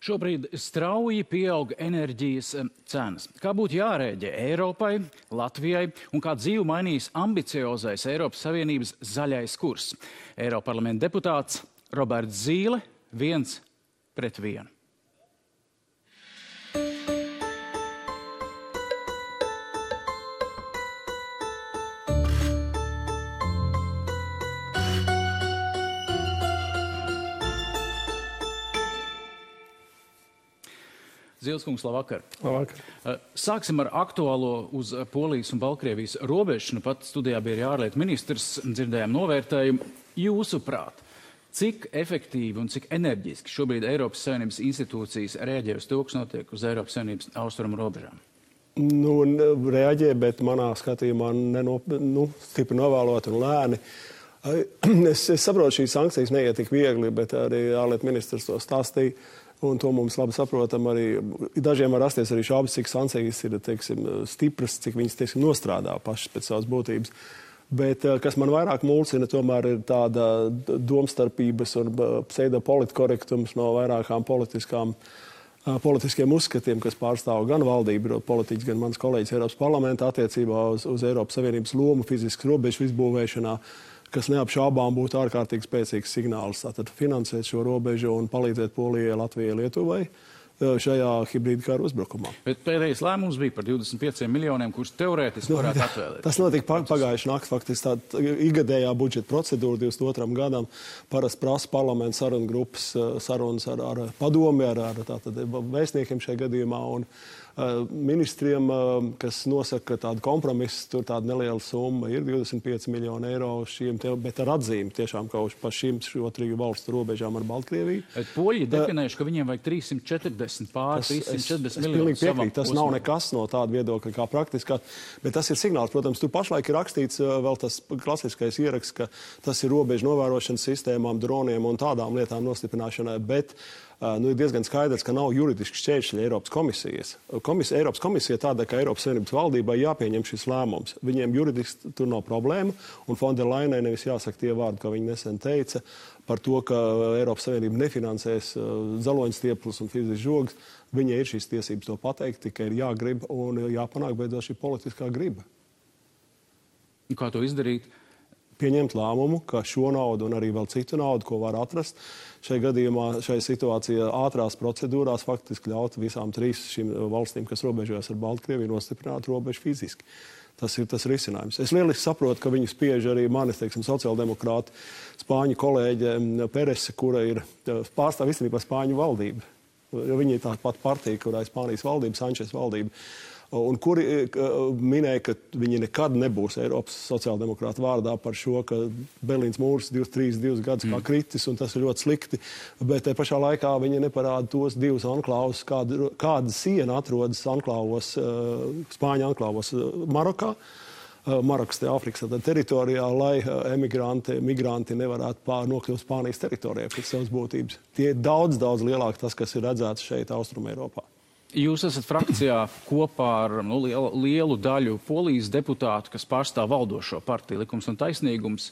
Šobrīd strauji pieaug enerģijas cenas. Kā būtu jārēģē Eiropai, Latvijai un kā dzīvi mainīs ambiciozais Eiropas Savienības zaļais kurs? Eiroparlamenta deputāts Roberts Zīle 1-1. Zīleskungs, labvakar. Labvakar. Sāksim ar aktuālo uz Polijas un Baltkrievijas robežu. Nu pat studijā bija arī ārlietu ministrs, dzirdējām novērtējumu. Jūsuprāt, cik efektīvi un cik enerģiski šobrīd Eiropas Savienības institūcijas reaģē uz to, kas notiek uz Eiropas Savienības austrumu robežām? Reaģē, bet manā skatījumā stipri novēlot un lēni. Es saprotu, šīs sankcijas neiet tik viegli, bet arī ārlietu ministrs to stāstīja. Un to mums labi saprotam arī. Dažiem var rasties arī šaubas, cik sankcijas ir, stipras, cik viņas, nostrādā pašas pēc savas būtības. Bet, kas man vairāk mulsina, tomēr ir tāda domstarpības un pseidopolitkorektums no vairākām politiskiem uzskatiem, kas pārstāv gan valdību politiķis, gan mans kolēģis Eiropas parlamentā attiecībā uz Eiropas Savienības lomu fiziskas robežu izbūvēšanā, kas neapšaubām būtu ārkārtīgi spēcīgs signāls. Tātad finansēt šo robežu un palīdzēt Polijai, Latvijai, Lietuvai šajā hibrīda kara uzbrukumā. Bet pēdējais lēmums bija par 25 miljoniem, kurus teorētiski varētu atvēlēt. Tas notika pagājuši nakti, faktiski tāda igadējā budžeta procedūra 22. gadam. Parasti prasa parlamenta sarunu grupas sarunas ar padomi, ar vēstniekiem šajā gadījumā un ministriem, kas nosaka tādu kompromisu, tur tāda neliela summa ir 25 miljoni eiro šiem, bet ar atzīmi tiešām kaut par šīm šo triju valstu robežām ar Baltkrieviju. Poļi definējuši, ka viņiem vajag 340 miljonus savam. Tas nav nekas no tāda viedokļa kā praktiskā, bet tas ir signāls. Protams, tur pašlaik ir rakstīts vēl tas klasiskais ieraksts, ka tas ir robežu novērošanas sistēmām, droniem un tādām lietām nostiprināšanai, bet ir diezgan skaidrs, ka nav juridiski šķēršļi Eiropas komisijas. Eiropas komisija tāda, ka Eiropas Savienības valdībai jāpieņem šis lēmums. Viņiem juridiski tur nav problēma, un Von der Leyenai nevis jāsaka tie vārdi, ka viņi nesen teica par to, ka Eiropas Savienība nefinansēs zaloņstieples un fiziskas žogas. Viņai ir šīs tiesības to pateikt, tikai ir jāgrib un jāpanāk beidzot šī politiskā griba. Kā to izdarīt? Pieņemt lēmumu, ka šo naudu un arī vēl citu naudu, ko var atrast, šai gadījumā, šai situācijā ātrās procedūrās faktiski ļaut visām trīs šīm valstīm, kas robežojas ar Baltkrieviju, nostiprināt robežu fiziski. Tas ir tas risinājums. Es lieliski saprotu, ka viņu spiež arī manis, sociāldemokrāti, spāņu kolēģe Perese, kura ir pārstāv īstenībā Spāņu valdību. Viņa ir tā pat partija, kurā ir Spānijas valdība, Sančes valdība. Un kuri minēja, ka viņi nekad nebūs Eiropas sociāldemokrāta vārdā par šo, ka Berlīnas mūrs 32 gadus kā kritis, un tas ir ļoti slikti. Bet te pašā laikā viņi neparāda tos divus anklāvus, kāda siena atrodas anklāvos, Spāņu anklāvos Marokā. Marokas Āfrikas teritorijā, lai migranti nevarētu nokļūt Spānijas teritorijā pēc savas būtības. Tie ir daudz lielāk tas, kas ir redzēts šeit Austrum Eiropā. Jūs esat frakcijā kopā ar lielu daļu Polijas deputātu, kas pārstāv valdošo partiju Likums un taisnīgums,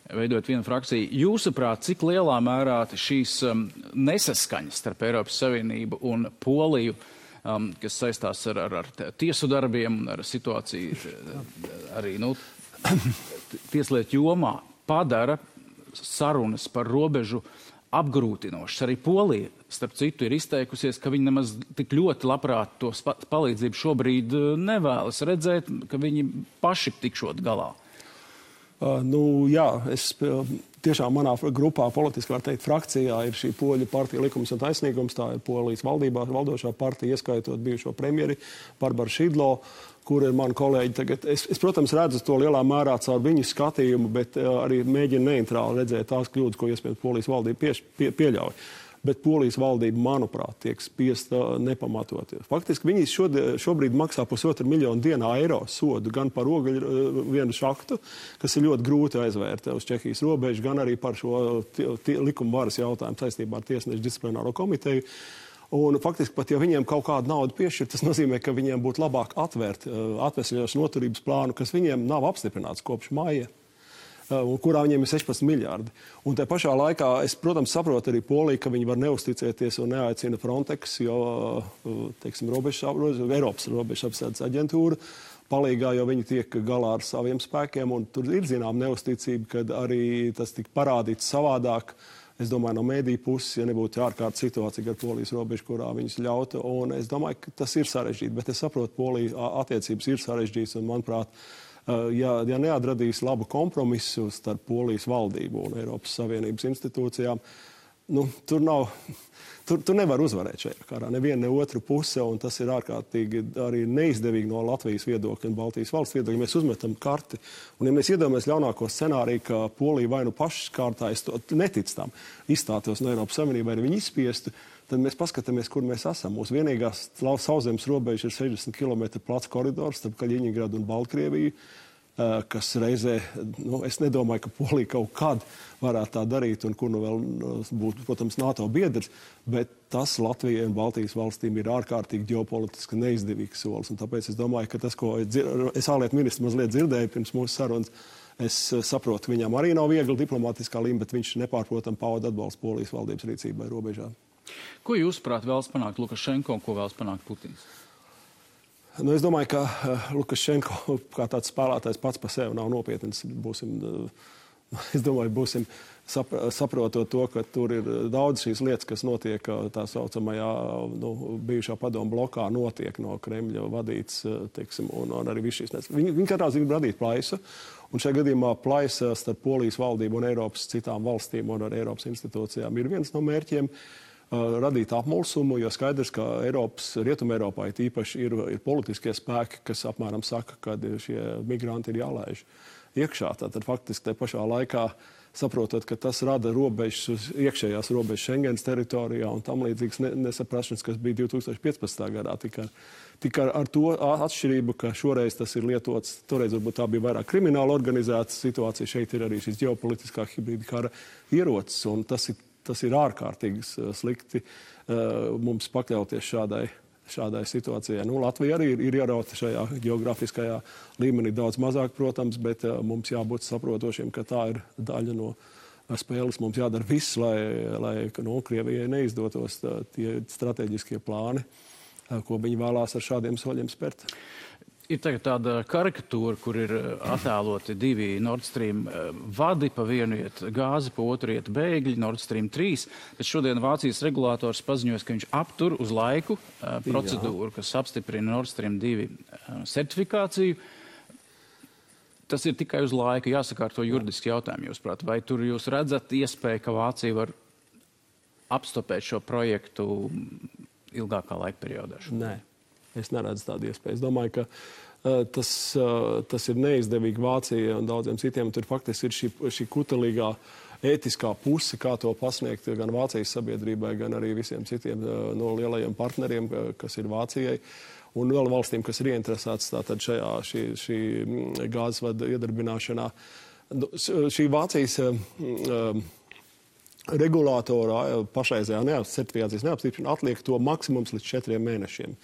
veidojot vienu frakciju. Jūsuprāt, cik lielā mērā šīs nesaskaņas starp Eiropas Savienību un Poliju, kas saistās ar tiesu darbiem un ar situāciju arī tieslietu jomā, padara sarunas par robežu apgrūtinošas. Arī Polija, starp citu, ir izteikusies, ka viņi nemaz tik ļoti labprāt to palīdzību šobrīd nevēlas redzēt, ka viņi paši tikšot galā. Tiešām manā grupā, politiski var teikt, frakcijā ir šī Poļu partija Likums un taisnīgums, tā ir Polijas valdībā valdošā partija, ieskaitot bijušo premjeri Barbaru Šidlo, kur ir mani kolēģi tagad. Es, protams, redzu to lielā mērā caur viņu skatījumu, bet arī mēģinu neitrāli redzēt tās kļūdas, ko iespējams Polijas valdība pieļauj. Bet Polijas valdība, manuprāt, tiek spiesta nepamatot. Faktiski viņi šobrīd maksā 1,5 miljonu dienā eiro sodu gan par ogļu vienu šaktu, kas ir ļoti grūti aizvērt uz Čehijas robežu, gan arī par šo likuma varas jautājumu saistībā ar tiesnešu disciplināro komiteju. Un faktiski pat, ja viņiem kaut kādu naudu piešķir, tas nozīmē, ka viņiem būtu labāk atvērt atvesļošanas noturības plānu, kas viņiem nav apstiprināts kopš maija. kurā viņiem ir 16 miljardi. Un te pašā laikā es, protams, saprotu arī Poliju, ka viņi var neusticēties un neaicina Frontex, jo, teiksim, Eiropas robežapsardzes aģentūra palīgā, jo viņi tiek galā ar saviem spēkiem, un tur ir zinām neusticība, kad arī tas tika parādīts savādāk. Es domāju, no mēdīju puses, ja nebūtu ārkārtas situācija ar Polijas robežu, kurā viņus ļautu, un es domāju, ka tas ir sarežģīti, bet es saprotu, Polija attiecības ir sarežģītas, un, manuprāt, ja neatradīs labu kompromisu starp Polijas valdību un Eiropas Savienības institūcijām, tur nevar uzvarēt šajā karā, neviena, ne otru puse, un tas ir ārkārtīgi arī neizdevīgi no Latvijas viedokļa un Baltijas valsts viedokļa. Ja mēs uzmetam karti, un ja mēs iedomājamies ļaunāko scenāriju, ka Polija vai nu pašas kārtā, es neticu tam, izstātos no Eiropas Savienības, vai viņi izspiestu, tad mēs paskatāmies, kur mēs esam. Mūsu vienīgās sauszemes robeža ir 60 km plats koridors starp Kaļiņingradu un Baltkrieviju, kas reizē, es nedomāju, ka Polija kaut kad varētu tā darīt, un kur vēl būtu, protams, NATO biedrs, bet tas Latvijai un Baltijas valstīm ir ārkārtīgi ģeopolitiski neizdevīgs solis. Un tāpēc es domāju, ka tas, ko es ārlietu ministru mazliet dzirdēju pirms mūsu sarunas, es saprotu, ka viņam arī nav viegli diplomātiskā līmenī, bet viņš nepārprotam pauda atbalstu Polijas valdības rīcībai robežā. Ko jūsuprāt vēlas panākt Lukašenko un ko vēlas panākt Putins? Es domāju, ka Lukašenko kā tāds spēlētājs pats par sevi nav nopietns. Es domāju, būsim saprotot to, ka tur ir daudz šīs lietas, kas notiek tā saucamajā bijušā padomu blokā, notiek no Kremļa vadīts, teiksim, un arī viss šīs lietas. Viņi katrā ziņā grib radīt plaisu, un šajā gadījumā plaisa starp Polijas valdību un Eiropas citām valstīm un ar Eiropas institūcijām ir viens no mērķiem. Radīt apmulsumu, jo skaidrs, ka Rietumē Eiropā īpaši ir politiskie spēki, kas apmēram saka, ka šie migranti ir jālaiž iekšā. Tātad faktiski te pašā laikā saprotot, ka tas rada robežas, iekšējās robežas Schengens teritorijā un tam līdzīgas nesaprašanas, kas bija 2015. gadā. Tikai ar to atšķirību, ka šoreiz tas ir lietots, toreiz varbūt tā bija vairāk krimināla organizēta situācija, šeit ir arī šis ģeopolitiskā hibrīda kara ierocis, un tas ir ārkārtīgi slikti mums pakļauties šādai situācijai. Latvija arī ir ierauta šajā geogrāfiskajā līmenī daudz mazāk, protams, bet mums jābūt saprotošiem, ka tā ir daļa no spēles. Mums jādara viss, lai Krievijai neizdotos tie strateģiskie plāni, ko viņi vēlās ar šādiem soļiem spērt. Ir tagad tāda karikatūra, kur ir attēloti divi Nord Stream vadi, pa vienu iet gāzi, pa otru iet bēgļi, Nord Stream 3. Bet šodien Vācijas regulators paziņojas, ka viņš aptur uz laiku procedūru, kas apstiprina Nord Stream 2 certifikāciju. Tas ir tikai uz laiku, jāsakārto juridiski jautājumi, jūsuprāt. Vai tur jūs redzat iespēju, ka Vācija var apstopēt šo projektu ilgākā laika periodā? Nē. Es neredzu tādu iespēju. Es domāju, ka tas ir neizdevīgi Vācijai un daudziem citiem. Tur faktiski ir šī kutelīgā ētiskā puse, kā to pasniegt gan Vācijas sabiedrībai, gan arī visiem citiem no lielajiem partneriem, kas ir Vācijai. Un vēl valstīm, kas ir ieinteresētas tātad šī gāzes vada iedarbināšanā. Šī Vācijas regulātora pašreizējā certifikācijas neapstiprināšana atliek to maksimums līdz 4 mēnešiem.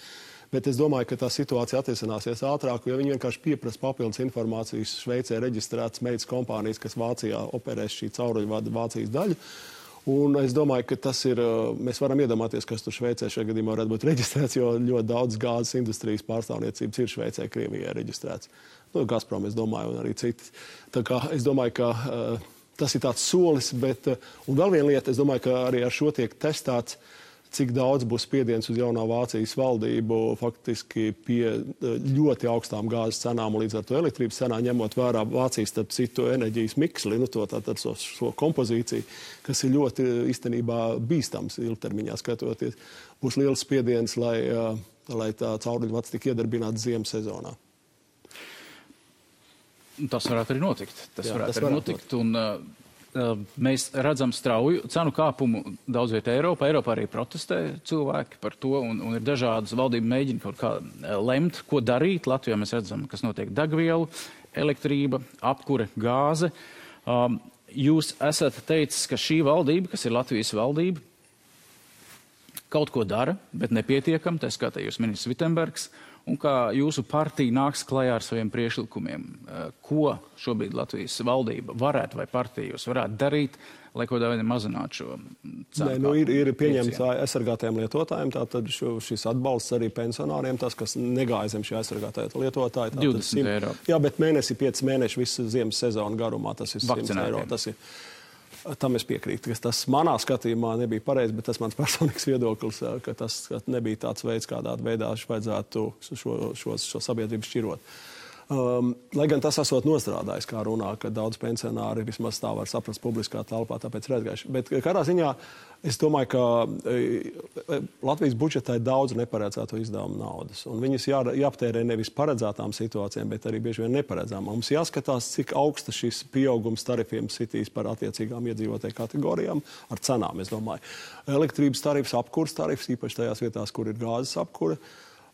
Bet es domāju, ka tā situācija atrisināsies ātrāk, jo viņi vienkārši pieprasa papildus informācijas Šveicē reģistrētas meitas kompānijas, kas Vācijā operēs šī cauruļvada Vācijas daļu. Un es domāju, ka tas ir, mēs varam iedomāties, kas tur Šveicē šajā gadījumā varētu būt reģistrēts, jo ļoti daudz gāzes industrijas pārstāvniecības ir Šveicē, Krievijā reģistrēts. Gazprom, es domāju, un arī citi. Tā kā es domāju, ka tas ir tāds solis, bet, un vēl viena lieta, es domāju, ka arī ar šo tiek testēts, cik daudz būs spiediens uz jaunā Vācijas valdību faktiski pie ļoti augstām gāzes cenām un līdz ar to elektrības cenā, ņemot vērā Vācijas starp citu enerģijas miksli, tātad šo kompozīciju, kas ir ļoti īstenībā bīstams ilgtermiņā skatoties. Būs liels spiediens, lai tā cauruļvads tik iedarbināts ziemas sezonā. Tas varētu arī notikt. Tas varētu arī notikt. Un, mēs redzam strauju cenu kāpumu daudz vietā Eiropā. Eiropā arī protestē cilvēki par to, un ir dažādas valdība mēģina kaut kā lemt, ko darīt. Latvijā mēs redzam, kas notiek degvielu, elektrība, apkure, gāze. Jūs esat teicis, ka šī valdība, kas ir Latvijas valdība, kaut ko dara, bet nepietiekam, tā skatā jūs ministrs Vitenbergs, un kā jūsu partija nāks klajā ar saviem priekšlikumiem. Ko šobrīd Latvijas valdība varētu vai partija jūs varētu darīt, lai kaut kādā veidā mazinātu šo cenu? Ir pieņemts aizsargātajiem lietotājiem, tātad šis atbalsts arī pensionāriem, tas, kas negāja zem šī aizsargātāja lietotāja. 20 eiro. Jā, bet 5 mēneši visu ziemas sezonu garumā, tas ir 100 eiro. Tam es piekrītu, ka tas manā skatījumā nebija pareizi, bet tas mans personīgs viedoklis, ka tas nebija tāds veids, kādā veidā vajadzētu šo sabiedrību šķirot. Lai gan tas esot nostrādājis, kā runā, ka daudz pensionāri vismaz tā var saprast publiskā telpā, tāpēc ir aizgājuši. Bet kādā ziņā es domāju, ka Latvijas budžetā ir daudz neparedzēto izdevumu naudas. Un viņas jāaptērē nevis paredzētām situācijām, bet arī bieži vien neparedzām. Mums jāskatās, cik augsta šis pieaugums tarifiem sitīs par attiecīgām iedzīvotāju kategorijām ar cenām, es domāju. Elektrības tarifs, apkures tarifs, īpaši tajās vietās, kur ir gāzes apkure.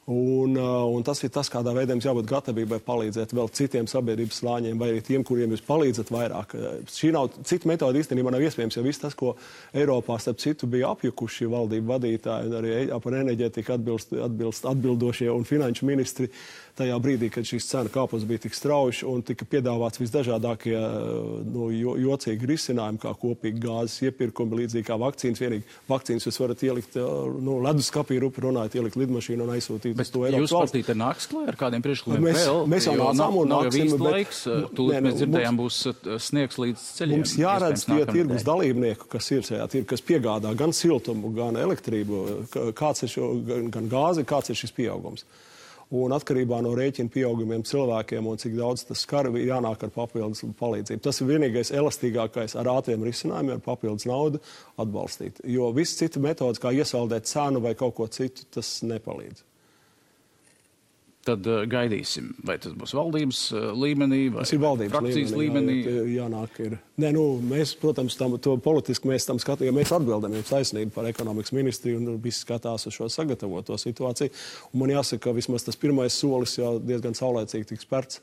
Un tas ir tas, kādā veidā jums jābūt gatavībai palīdzēt vēl citiem sabiedrības slāņiem, vai arī tiem, kuriem jūs palīdzat vairāk. Cita metode īstenībā nav iespējams, jo viss tas, ko Eiropā starp citu bija apjukuši valdību vadītāji un arī par enerģētiku atbildošie un finanšu ministri tajā brīdī, kad šīs cena kāpums bija tik strauji un tika piedāvāts visdažādākie jocīgi risinājumi, kā kopīgi gāzes iepirkumi, līdzīgi kā vakcīnas. Vienīgi vakcīnas jūs varat ielikt leduskapī, rupi runājot, ielikt lidmašīnu un aizsūtīt. Bet jūs partija te nāks klāt ar kādiem priekšlikumiem vēl? Mēs jau nācām un nav jau nāksim. īsti laiks. Tūlīt mēs dzirdējām, būs sniegs līdz ceļiem. Mums jāredz tie tirgus dalībnieku, kas ir šajā tirgu, kas piegādā gan siltumu, gan elektrību, kāds ir gan gāzi, kāds ir šis pieaugums. Un atkarībā no rēķina pieaugumiem cilvēkiem un cik daudz tas skar, jānāk ar papildus palīdzību. Tas ir vienīgais elastīgākais ar ātriem risinājumiem, ar papildus naudu atbalstīt. Jo viss cita metodas, kā iesaldēt cenu vai kaut ko citu, tas nepalīdz. Tad gaidīsim, vai tas būs valdības līmenī vai frakcijas līmenī. Jānāk ir. Mēs, protams, to politiski mēs tam skatījām, mēs atbildam jums taisnību par ekonomikas ministriju un visi skatās uz šo sagatavoto situāciju. Un man jāsaka, ka vismaz tas pirmais solis jau diezgan saulēcīgi tiks spērts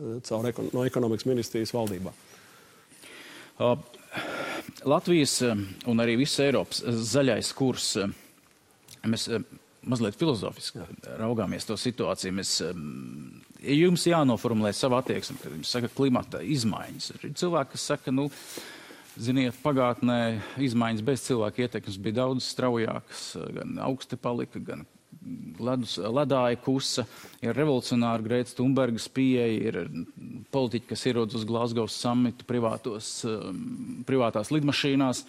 no ekonomikas ministrijas valdībā. Latvijas un arī visas Eiropas zaļais kurs, mēs mazliet filozofiski raugāmies to situāciju. Jums jānoformulē savu attieksmi, kad jums saka klimata izmaiņas. Ir cilvēki, kas saka, ziniet, pagātnē izmaiņas bez cilvēka ietekmes bija daudz straujākas, gan augsti palika, gan ledāja kusa, ir revolucionāri Grētas Thunbergas pieeja, ir politiķi, kas ierodas uz Glasgow summitu privātās lidmašīnās.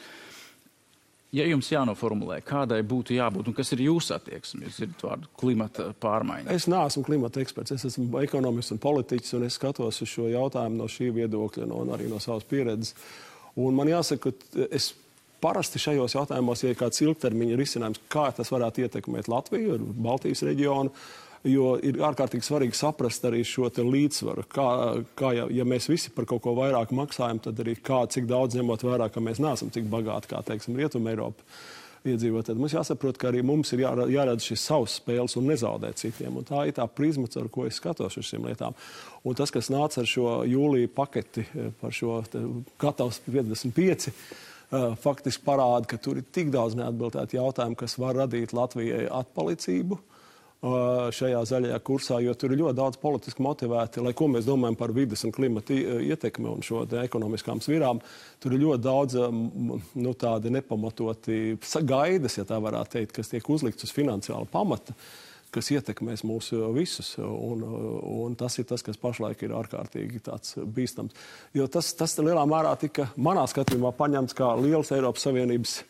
Ja jums jānoformulē, kādai būtu jābūt un kas ir jūsu attieksme, jūs dzirdat vārdu klimata pārmaiņa? Es neesmu klimata eksperts, es esmu ekonomists un politiķis, un es skatos uz šo jautājumu no šī viedokļa un arī no savas pieredzes. Un man jāsaka, ka es parasti šajos jautājumos, ja ir kāds ilgtermiņa risinājums, kā tas varētu ietekmēt Latviju, Baltijas reģionu, jo ir ārkārtīgi svarīgi saprast arī šo te līdzsvaru. Ja mēs visi par kaut ko vairāk maksājam, tad arī cik daudz ņemot vērā, ka mēs neesam cik bagāti, kā, teiksim, Rietuma Eiropa iedzīvot. Tad mums jāsaprot, ka arī mums ir jāredz šis savs spēles un nezaudēt citiem. Un tā ir tā prizma, ar ko es skatos uz šīm lietām. Un tas, kas nāca ar šo jūlija paketi par šo gatavs 55, faktiski parāda, ka tur ir tik daudz neatbildētu jautājumu, kas var radīt Latvijai atpalicību šajā zaļajā kursā, jo tur ir ļoti daudz politiski motivēti, lai ko mēs domājam par vides un klimata ietekmi un šo ekonomiskām svirām. Tur ir ļoti daudz tādi nepamatoti gaidas, ja tā varētu teikt, kas tiek uzlikts uz finansiāla pamata, kas ietekmēs mūs visus. Un tas ir tas, kas pašlaik ir ārkārtīgi tāds bīstams. Jo tas lielā mērā tika manā skatījumā paņemts kā liels Eiropas Savienības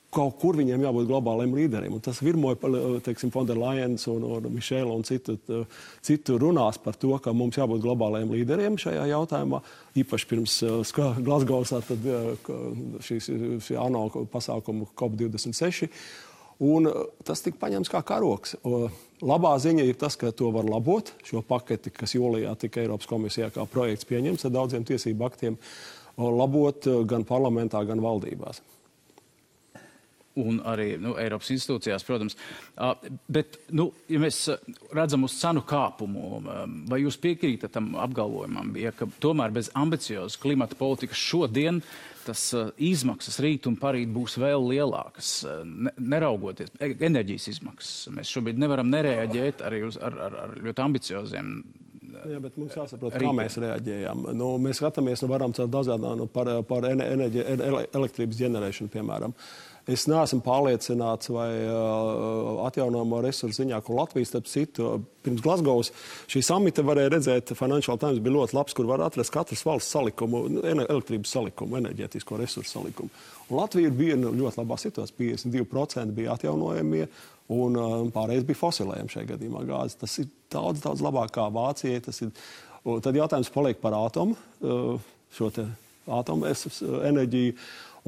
kaut kur viņiem jābūt globāliem līderiem. Un tas virmoja, teiksim, von der Leyens un Mišela un citu runās par to, ka mums jābūt globāliem līderiem šajā jautājumā. Īpaši pirms Glasgowsā tad šī ANO pasākumu COP26. Un tas tika paņemts kā karoks. Labā ziņa ir tas, ka to var labot, šo paketi, kas jūlijā tika Eiropas komisijā kā projekts pieņemts ar daudziem tiesību aktiem, labot gan parlamentā, gan valdībās. un arī Eiropas institūcijās, protams. Bet, ja mēs redzam uz cenu kāpumu, vai jūs piekrītat tam apgalvojumam, ka tomēr bez ambiciozas klimata politikas šodien tas izmaksas rīt un parīt būs vēl lielākas, neraugoties enerģijas izmaksas. Mēs šobrīd nevaram nereaģēt arī ar ļoti ambicioziem. Jā, bet mums jāsaprot, kā mēs reaģējam. Mēs skatāmies, varam caur dažādām par elektrības ģenerēšanu, piemēram. Es neesmu pārliecināts, vai atjaunojamo resursu ziņā, ko Latvijas, starp citu, pirms Glasgow's šī samita varēja redzēt, Financial Times bija ļoti labs, kur var atrast katras valsts salikumu, elektrības salikumu, enerģētisko resursu salikumu. Un Latvija bija ļoti labā situācijā, 52% bija atjaunojamie, un pārējais bija fosilējumi šajā gadījumā gāzes. Tas ir daudz labāk kā Vācijai. Tad jautājums paliek par ātomu, šo te ātomu enerģiju.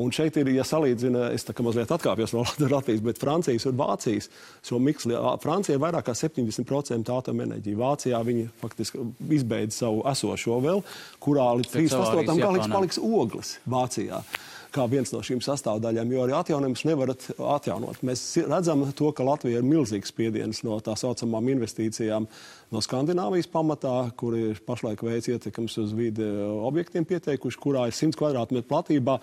Un šeit ir, ja salīdzina, es tā kā mazliet atkāpjos no Latvijas, bet Francijas un Vācijas šo miksli. Francija ir vairāk kā 70% atomenerģija. Vācijā viņi faktiski izbeidz savu esošo vēl, kurā līdz 38. gads paliks ogles Vācijā, kā viens no šīm sastāvdaļām, jo arī atjaunojums nevarat atjaunot. Mēs redzam to, ka Latvija ir milzīgs spiediens no tā saucamām investīcijām no Skandināvijas pamatā, kur ir pašlaik veids ietekams uz vidi objektiem pieteikuši, kurā ir 100 kvadrātmetru platībā,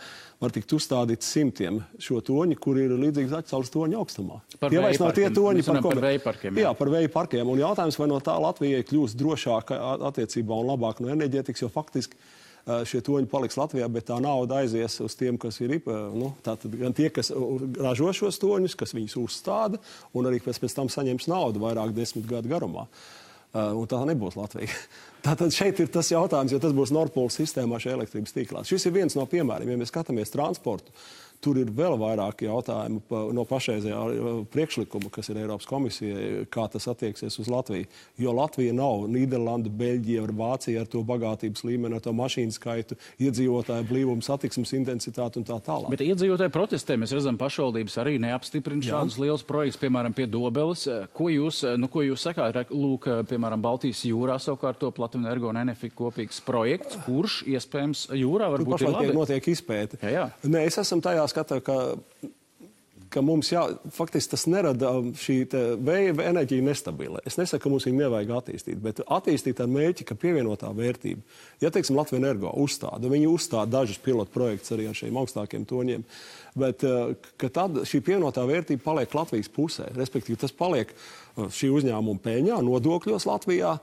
var tikt uzstādīts 100 šo toņi, kur ir līdzīgi Zaķisaules toņa augstumā. Tie vairs nav tie toņi, par vēju parkiem. Jā, par vēju parkiem. Un jautājums, vai no tā Latvijai kļūst drošāka attiecībā un labāk no enerģētikas, jo faktiski šie toņi paliks Latvijā, bet tā nauda aizies uz tiem, kas ir, tātad gan tie, kas ražo šos toņus, kas viņus uzstāda, un arī pēc tam saņems naudu vairāk 10 gadu garumā. Un tā nebūs Latvija. Tātad šeit ir tas jautājums, jo tas būs Nord Pool sistēmā šajā elektrības tīklā. Šis ir viens no piemēriem, ja mēs skatāmies transportu. Tur ir vēl vairāk jautājumu no pašreizējā priekšlikuma, kas ir Eiropas komisijai, kā tas attieksies uz Latviju. Jo Latvija nav Nīderlanda, Beļģija vai Vācija ar to bagātības līmeni, ar to mašīnu skaitu, iedzīvotāju blīvumu, satiksmes intensitāti un tā tālāk. Bet iedzīvotāju protestē mēs redzam, pašvaldības arī neapstiprina šādus lielus projektus, piemēram, pie Dobeles. Ko jūs sakāt? Lūk, piemēram, Baltijas jūrā savukārt to Platinenergo un Enefit kopīgs projekts, kurš iespējams jūrā varbūt ir labi. Notiek izpēte. Jā. Nē, es esmu tajā skatā, ka mums faktiski tas nerada šī vēja enerģija nestabila. Es nesaku, ka mums viņu nevajag attīstīt, bet attīstīt ar mērķi, ka pievienotā vērtība. Ja, teiksim, Latvenergo uzstāda, viņi uzstāda dažus pilotu projektus arī ar šiem augstākiem toņiem, bet ka tad šī pievienotā vērtība paliek Latvijas pusē, respektīvi tas paliek šī uzņēmuma peļņā, nodokļos Latvijā.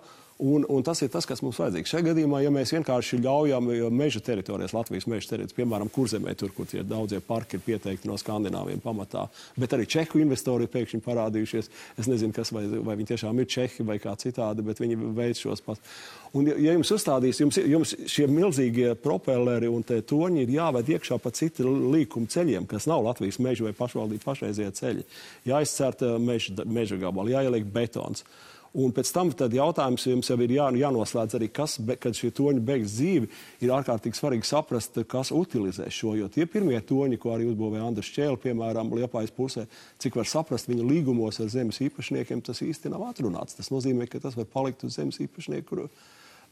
Un tas ir tas, kas mums vajadzīgs. Šajā gadījumā, ja mēs vienkārši ļaujam meža teritorijas, Latvijas meža teritorijas, piemēram, Kurzemē, tur, kur tie daudzie parki ir pieteikti no Skandināviem pamatā, bet arī Čehu investori ir pēkšņi parādījušies. Es nezinu, kas, vai viņi tiešām ir Čehi vai kā citādi, bet viņi veic šos pats. Un ja jums uzstādīs, jums šie milzīgie propelleri un tie toņi ir jāved iekšā pa citu līkumu ceļiem, kas nav Latvijas meža vai pašvaldību pašreizie ceļi. Jāizcērta meža gabali, jāieliek betons. Un pēc tam tad jautājums jums jau ir jānoslēdz arī, kad šie toņi beigs dzīvi, ir ārkārtīgi svarīgi saprast, kas utilizē šo, jo tie pirmie toņi, ko arī uzbūvēja Andris Čēle, piemēram, Liepājas pusē, cik var saprast viņa līgumos ar zemes īpašniekiem, tas īsti nav atrunāts. Tas nozīmē, ka tas var palikt uz zemes īpašnieku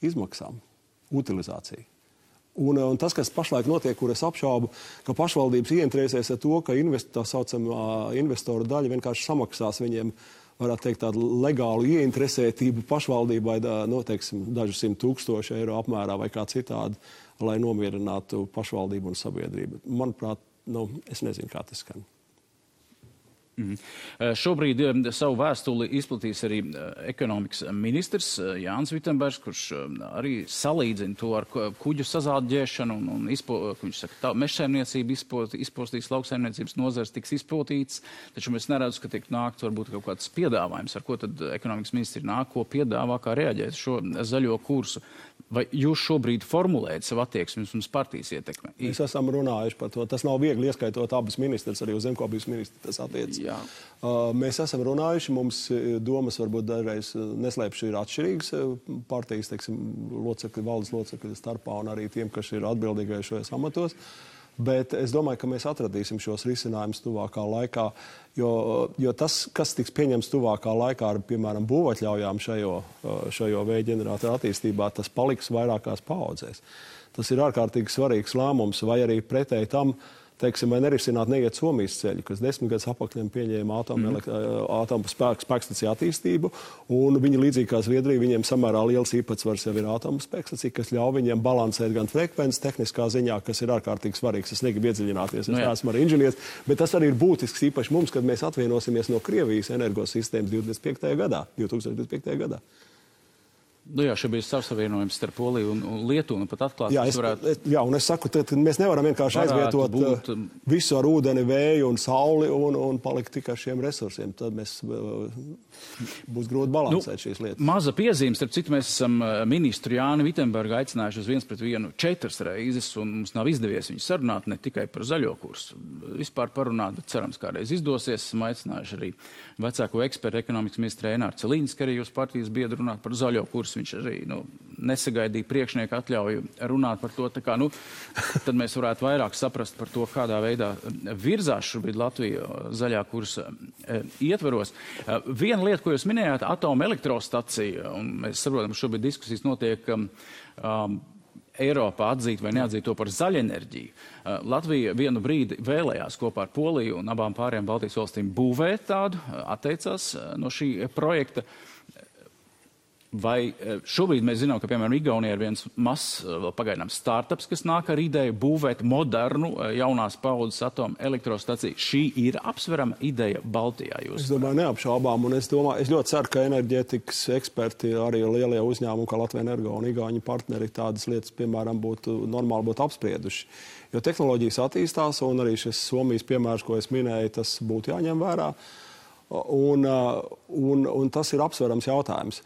izmaksām, utilizāciju. Un tas, kas pašlaik notiek, kur es apšaubu, ka pašvaldības ieinteresēs ar to, ka tā saucamā investoru daļa vienkārši samaksās viņiem, varētu teikt, tādu legālu ieinteresētību pašvaldībai, teiksim, dažu 100,000 eiro apmērā vai kā citādi, lai nomierinātu pašvaldību un sabiedrību. Manuprāt, es nezinu, kā tas skan. Šobrīd savu vēstuli izplatīs arī ekonomikas ministrs Jānis Vitenbergs, kurš arī salīdzina to ar kuģu sazāģēšanu un viņš saka, mežsaimniecība izpostīs, lauksaimniecības nozars tiks izpotīts, taču mēs neredzu, ka tiek nākt varbūt kaut kāds piedāvājums, ar ko tad ekonomikas ministri nāk, ko piedāvā, kā reaģēt šo zaļo kursu. Vai jūs šobrīd formulējat savu attieksmi uz partijas ietekmi? Mēs esam runājuši par to. Tas nav viegli, ieskaitot abas ministrs, arī uz zemkopības ministru tas attiec. Mēs esam runājuši, mums domas varbūt dažreiz neslēpši ir atšķirīgas partijas, teiksim, locekļi, valdes locekļi starpā un arī tiem, kas ir atbildīgai šajos amatos. Bet es domāju, ka mēs atradīsim šos risinājumus tuvākā laikā, jo tas, kas tiks pieņems tuvākā laikā ar, piemēram, būvatļaujām šajo vēja ģeneratoru attīstībā, tas paliks vairākās paaudzēs. Tas ir ārkārtīgi svarīgs lēmums, vai arī pretēji tam teiksim, vai nerisināt neiet Somijas ceļu, kas 10 gadus apakļiem pieņēma atomu spēkstaciju attīstību, un viņi līdzīgi kā Zviedrija, viņiem samērā liels īpatsvars jau ir atomu spēkstacija, kas ļauj viņiem balansēt gan frekvences tehniskā ziņā, kas ir ārkārtīgi svarīgs. Es negribu iedziļināties, es neesmu arī inženieris, bet tas arī ir būtisks īpaši mums, kad mēs atvienosimies no Krievijas energosistēmas 2025. gadā. Nu jā, šeit bija savsavienojums starp Poliju un Lietuvu, un pat atklāt, un es saku, tad mēs nevaram vienkārši aizvietot visu ar ūdeni, vēju un sauli un palikt tikai šiem resursiem. Tad mēs būs grūti balansēt šīs lietas. Maza piezīme, starp citu, mēs esam ministru Jāni Vitsenbergu aicinājuši uz 1-1 4 reizes, un mums nav izdevies viņu sarunāt ne tikai par zaļo kursu. Vispār parunāt, bet cerams, kādreiz izdosies. Esam aicinājuši arī vecāko ekspertu ekonomikas ministru Eināru Celīnsku, arī jūs partijas biedru runāt par zaļo kursu. Viņš arī nesagaidīja priekšnieku atļauju runāt par to. Tā kā, tad mēs varētu vairāk saprast par to, kādā veidā virzās šobrīd Latvija zaļā kursa ietveros. Viena lieta, ko jūs minējāt, atomelektrostacija, un mēs saprotam, ka šobrīd diskusijas notiek Eiropā atzīt vai neatzīt to par zaļenerģiju. Latvija vienu brīdi vēlējās kopā ar Poliju un abām pārējām Baltijas valstīm būvēt tādu, atteicās no šī projekta. Vai šobrīd mēs zinām, ka, piemēram, Igaunijā ir viens mazs, vēl pagaidām, startups, kas nāk ar ideju būvēt modernu, jaunās paudzes atomu elektrostaciju. Šī ir apsverama ideja Baltijā. Es domāju, neapšaubām, un es ļoti ceru, ka enerģētikas eksperti, arī lielie uzņēmumi, kā Latvija Energo un Igauņu partneri, tādas lietas, piemēram, normāli būtu apsprieduši. Jo tehnoloģijas attīstās, un arī šis Somijas piemērs, ko es minēju, tas būtu jāņem vērā, un tas ir apsverams jautājums.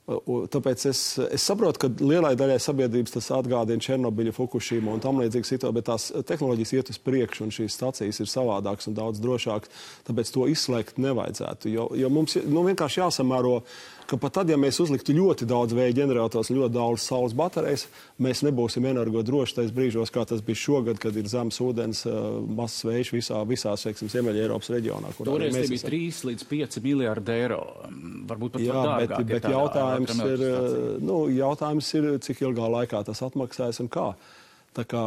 Tāpēc es saprotu, ka lielai daļai sabiedrības tas atgādina Černobiļu, Fukušimu un tam līdzīgas situācijas, bet tās tehnoloģijas iet uz priekšu un šīs stacijas ir savādākas un daudz drošākas, tāpēc to izslēgt nevajadzētu. Jo mums vienkārši jāsamēro, ka pat tad, ja mēs uzliktu ļoti daudz vēja ģenerators un ļoti daudz saules baterijas, mēs nebūsim energodroši tais brīžos, kā tas bija šogad, kad ir zemes ūdens, mazs vējš visās, teiksim, Ziemeļa Eiropas reģionā. Toreiz tie bija 3 līdz 5 miljārdi eiro. Varbūt pat dārgāk. Bet jautājums ir, cik ilgā laikā tas atmaksājas un kā. Tā kā,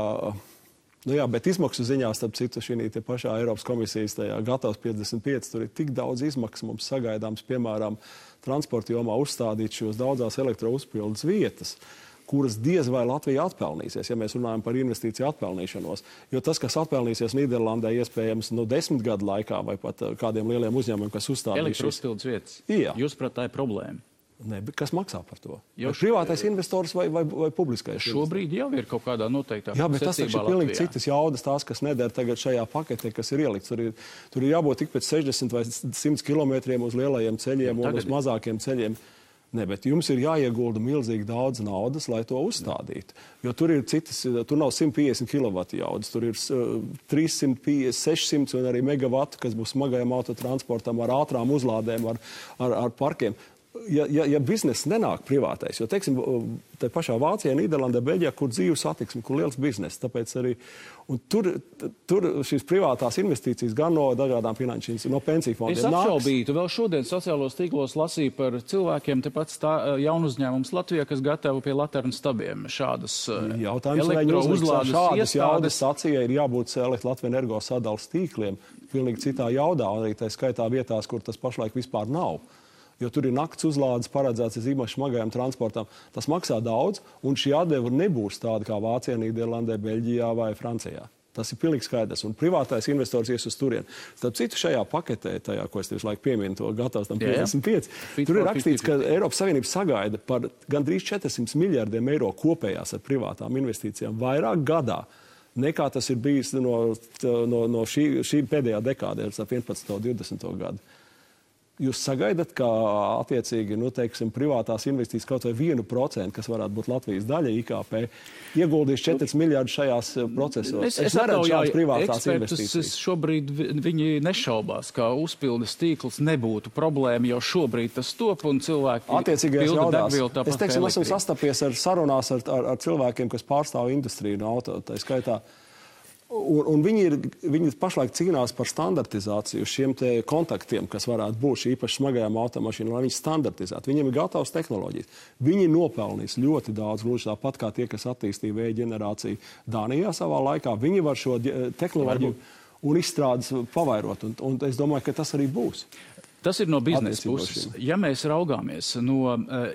bet izmaksu ziņā, starp citu, šī pašā Eiropas komisijas tajā gatavs 55, tur ir tik daudz izmaksu mums sagaidāms, piemēram, transporta jomā uzstādīt šos daudzās elektrouzpildes vietas, kuras diez vai Latvija atpelnīsies, ja mēs runājam par investīciju atpelnīšanos. Jo tas, kas atpelnīsies Nīderlandē, iespējams 10 gadu laikā vai pat kādiem lieliem uzņēmumiem, kas uzstādīs elektrouzpildes vietas. Jā. Jūs, prāt, tā ir problēma? Ne, bet kas maksā par to? Privātais investors vai publiskais? Šobrīd jau ir kaut kādā noteiktā secībā. Jā, bet tas taču ir pilnīgi citas jaudas, tās, kas neder tagad šajā paketē, kas ir ielikts. Tur ir jābūt tik pēc 60 vai 100 kilometriem uz lielajiem ceļiem un uz mazākiem ceļiem. Ne, bet jums ir jāiegulda milzīgi daudz naudas, lai to uzstādītu. Jo tur ir tur nav 150 kW jaudas, tur ir 350, 600 un arī megavatu, kas būs smagajam autotransportam ar ātrām uzlādēm, ar parkiem. Ja bizness nenāk privātais, jo, teiksim, te pašā Vācijā, Nīderlandē, Beļģijā, kur dzīvu satiksmi, kur liels bizness, tāpēc arī, un tur šīs privātās investīcijas gan no dažādām finanšu, no pensiju fondiem. Es apšaubītu, vēl šodien sociālos tīklos lasīju par cilvēkiem, tepat jaunu uzņēmums Latvijā, kas gatavo pie Laternu stabiem šādas elektrouzlādes šādas jaudas stacijai ir jābūt Latvija Energo sadalas tīkliem, pilnīgi citā jaudā, arī tā skaitā vietās, kur tas pašlaik vispār nav. Jo tur ir nakts uzlādes paredzēts īpaši smagajam transportam. Tas maksā daudz, un šī atdeva nebūs tāda kā Vācijā, Nīderlandē, Beļģijā vai Francijā. Tas ir pilnīgi skaidrs, un privātais investors ies uz turieni. Starp citu, šajā paketē, tajā, ko es tieši laiku pieminu, to gatavs tam 55, tur ir rakstīts, ka Eiropas Savienība sagaida par gandrīz 400 miljardiem eiro kopējās ar privātām investīcijām vairāk gadā, nekā tas ir bijis no šī pēdējā dekādē, ar 11. un 20. gadu. Jūs sagaidat, ka attiecīgi, teiksim, privātās investīcijas kaut vai 1%, kas varētu būt Latvijas daļa IKP, ieguldīs 4 miljārdus šajās procesos. Es neredzu šādas privātās investīcijas. Šobrīd viņi nešaubās, ka uzpildes tīkls nebūtu problēma, jo šobrīd tas top un cilvēki pilda degvielu tāpat. Es teiksim, esmu sastapies ar sarunās ar cilvēkiem, kas pārstāv industriju no auto, tā skaitā. Un viņi pašlaik cīnās par standartizāciju šiem te kontaktiem, kas varētu būt īpaši smagajām automašīnām, lai viņi standartizētu. Viņiem ir gatavs tehnoloģijas. Viņi nopelnīs ļoti daudz, gluži tāpat kā tie, kas attīstīja vēja ģenerāciju Dānijā savā laikā. Viņi var šo tehnoloģiju un izstrādes pavairot, un es domāju, ka tas arī būs. Tas ir no biznesa puses. Ja mēs raugāmies no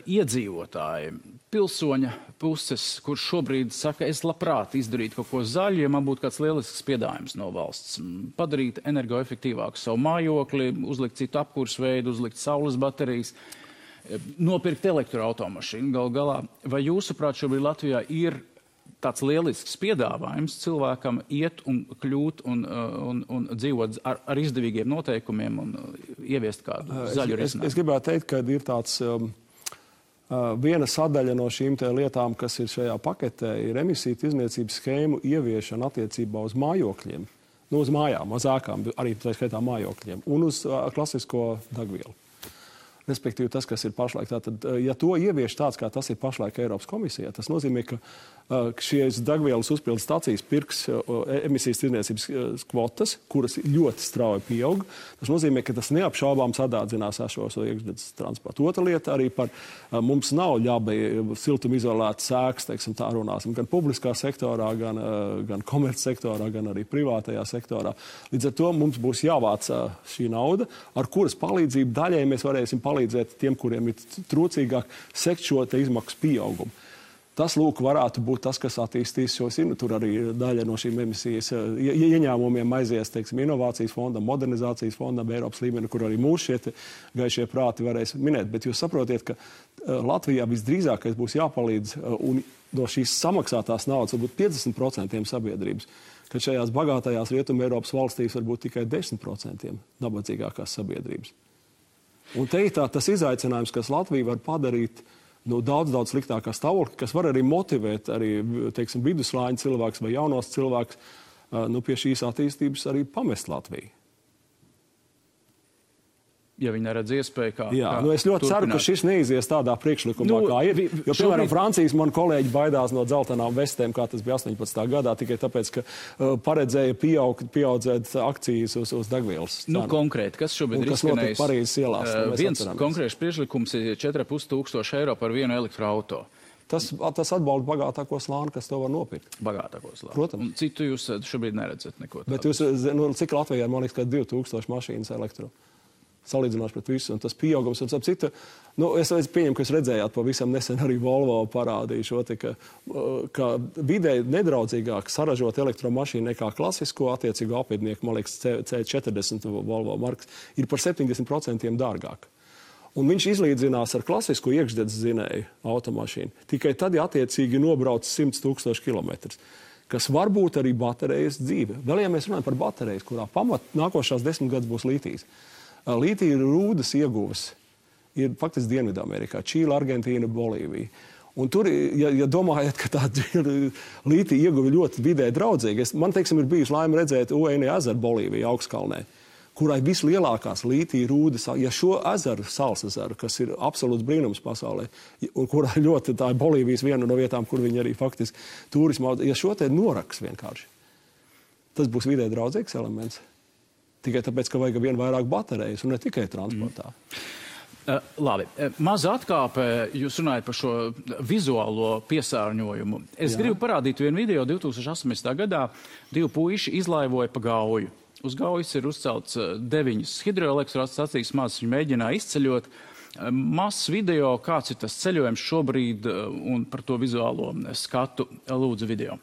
iedzīvotāja, pilsoņa puses, kurš šobrīd saka, es labprāt izdarītu kaut ko zaļu, ja man būtu kāds lielisks piedāvājums no valsts, padarīt energoefektīvāku savu mājokli, uzlikt citu apkursveidu, uzlikt saules baterijas, nopirkt elektroautomašīnu gal galā. Vai jūsuprāt šobrīd Latvijā ir tāds lielisks piedāvājums cilvēkam iet un kļūt un dzīvot ar izdevīgiem noteikumiem un ieviest kādu zaļu risinājumu? Es gribētu teikt, ka ir tāds viena sadaļa no šīm lietām, kas ir šajā paketē, ir emisiju tirdzniecības schēmu ieviešana attiecībā uz mājokļiem. Uz mājām, uz ēkām, arī tā skaitā mājokļiem un uz klasisko degvielu. Respektīvi tas, kas ir pašlaik. Tātad, ja to ievieš tāds, kā tas ir pašlaik Eiropas komisijā, tas nozīmē, ka šīs degvielas uzpildes stacijas pirks emisijas tirdzniecības kvotas, kuras ļoti strauji pieaug. Tas nozīmē, ka tas neapšaubām sadārdzinās esošo iekšzemes transportu. Otra lieta arī par mums nav ļabi siltumizolētas ēkas, teiksim, tā runāsim, gan publiskā sektorā, gan komercsektorā, gan arī privātajā sektorā. Līdz ar to mums būs jāvāc šī nauda, ar kuras palīdzību daļai mēs varēsim palīdzēt tiem, kuriem ir trūcīgāk sekt šo te izmaksu pieaugumu. Tas, lūk, varētu būt tas, kas attīstīs šos, tur arī daļa no šīm emisijas ieņēmumiem aizies, teiksim, inovācijas fondam, modernizācijas fondam, Eiropas līmeni, kur arī mūsu šie gaišie prāti varēs minēt. Bet jūs saprotiet, ka Latvijā visdrīzākais būs jāpalīdz un no šīs samaksātās naudas varbūt 50% sabiedrības, ka šajās bagātajās Rietuma Eiropas valstīs varbūt tikai 10% nabadzīgākās sabiedrības. Un te ir tas izaicinājums, kas Latvija var padarīt daudz sliktākā stāvokļa, kas var arī motivēt arī, teiksim, viduslāņa cilvēks vai jaunos cilvēks pie šīs attīstības arī pamest Latviju. Ja viņi neredz iespēju, kā es ļoti ceru, ka šis neizies tādā priekšlikumā, kā ir. Jo, piemēram, Francijas man kolēģi baidās no dzeltenām vestēm, kā tas bija 18. gadā, tikai tāpēc, ka paredzēja pieaudzēt akcijas uz degvielas. Konkrēti, kas šobrīd ir izskanējis? Parīzes ielās. Viens konkrēts priekšlikums ir 4500 eiro par vienu elektroauto. Tas atbalda bagātāko slāni, kas to var nopirkt. Bagātāko slāni. Protams. Un citu jūs šobrīd neredzat neko tādu. Bet jūs, cik Latvijā, man liekas, ka 2000 mašīnas elektro. Salīdzinoši pret visu, un tas pieaugums, un citu, es pieņemu, ka jūs redzējāt pavisam nesen arī Volvo parādīja šo, ka vidē nedraudzīgāk saražot elektromašīnu nekā klasisko attiecīgo apviednieku, man liekas, C40 Volvo markas, ir par 70% dārgāk. Un viņš izlīdzinās ar klasisko iekšdedz dzinēju automašīnu. Tikai tad, ja attiecīgi nobrauc 100 000 kilometrus, kas varbūt arī baterijas dzīve. Vēl, ja mēs runājam par baterijas, kurā nākošās 10 gadus būs lītijas. Lītija rūdas ieguves ir faktiski Dienvidamerikā, Čīle, Argentīna, Bolīvija. Un tur, ja domājat, ka tā lītija ieguve ļoti vidē draudzīga, man, teiksim, ir bijusi laime redzēt Uēni ezeru Bolīvija augstkalnē, kurai vislielākās lītija rūdas, ja šo ezeru, Sals ezeru, kas ir absolūts brīnums pasaulē, un kurā ļoti tā ir Bolīvijas viena no vietām, kur viņi arī faktiski turismu, ja šo te noraks vienkārši, tas būs vidē draudzīgs elements. Tikai tāpēc, ka vajag vien vairāk baterijas un ne tikai transportā. Labi. Maza atkāpe, jūs runājat par šo vizuālo piesārņojumu. Es gribu parādīt vienu video 2018. gadā. 2 puiši izlaivoja pa Gauju. Uz Gaujas ir uzcelts 9 hidroelektrostacijas, mazas viņi mēģināja izceļot. Mazs video, kāds ir tas ceļojums šobrīd un par to vizuālo skatu, lūdzu video.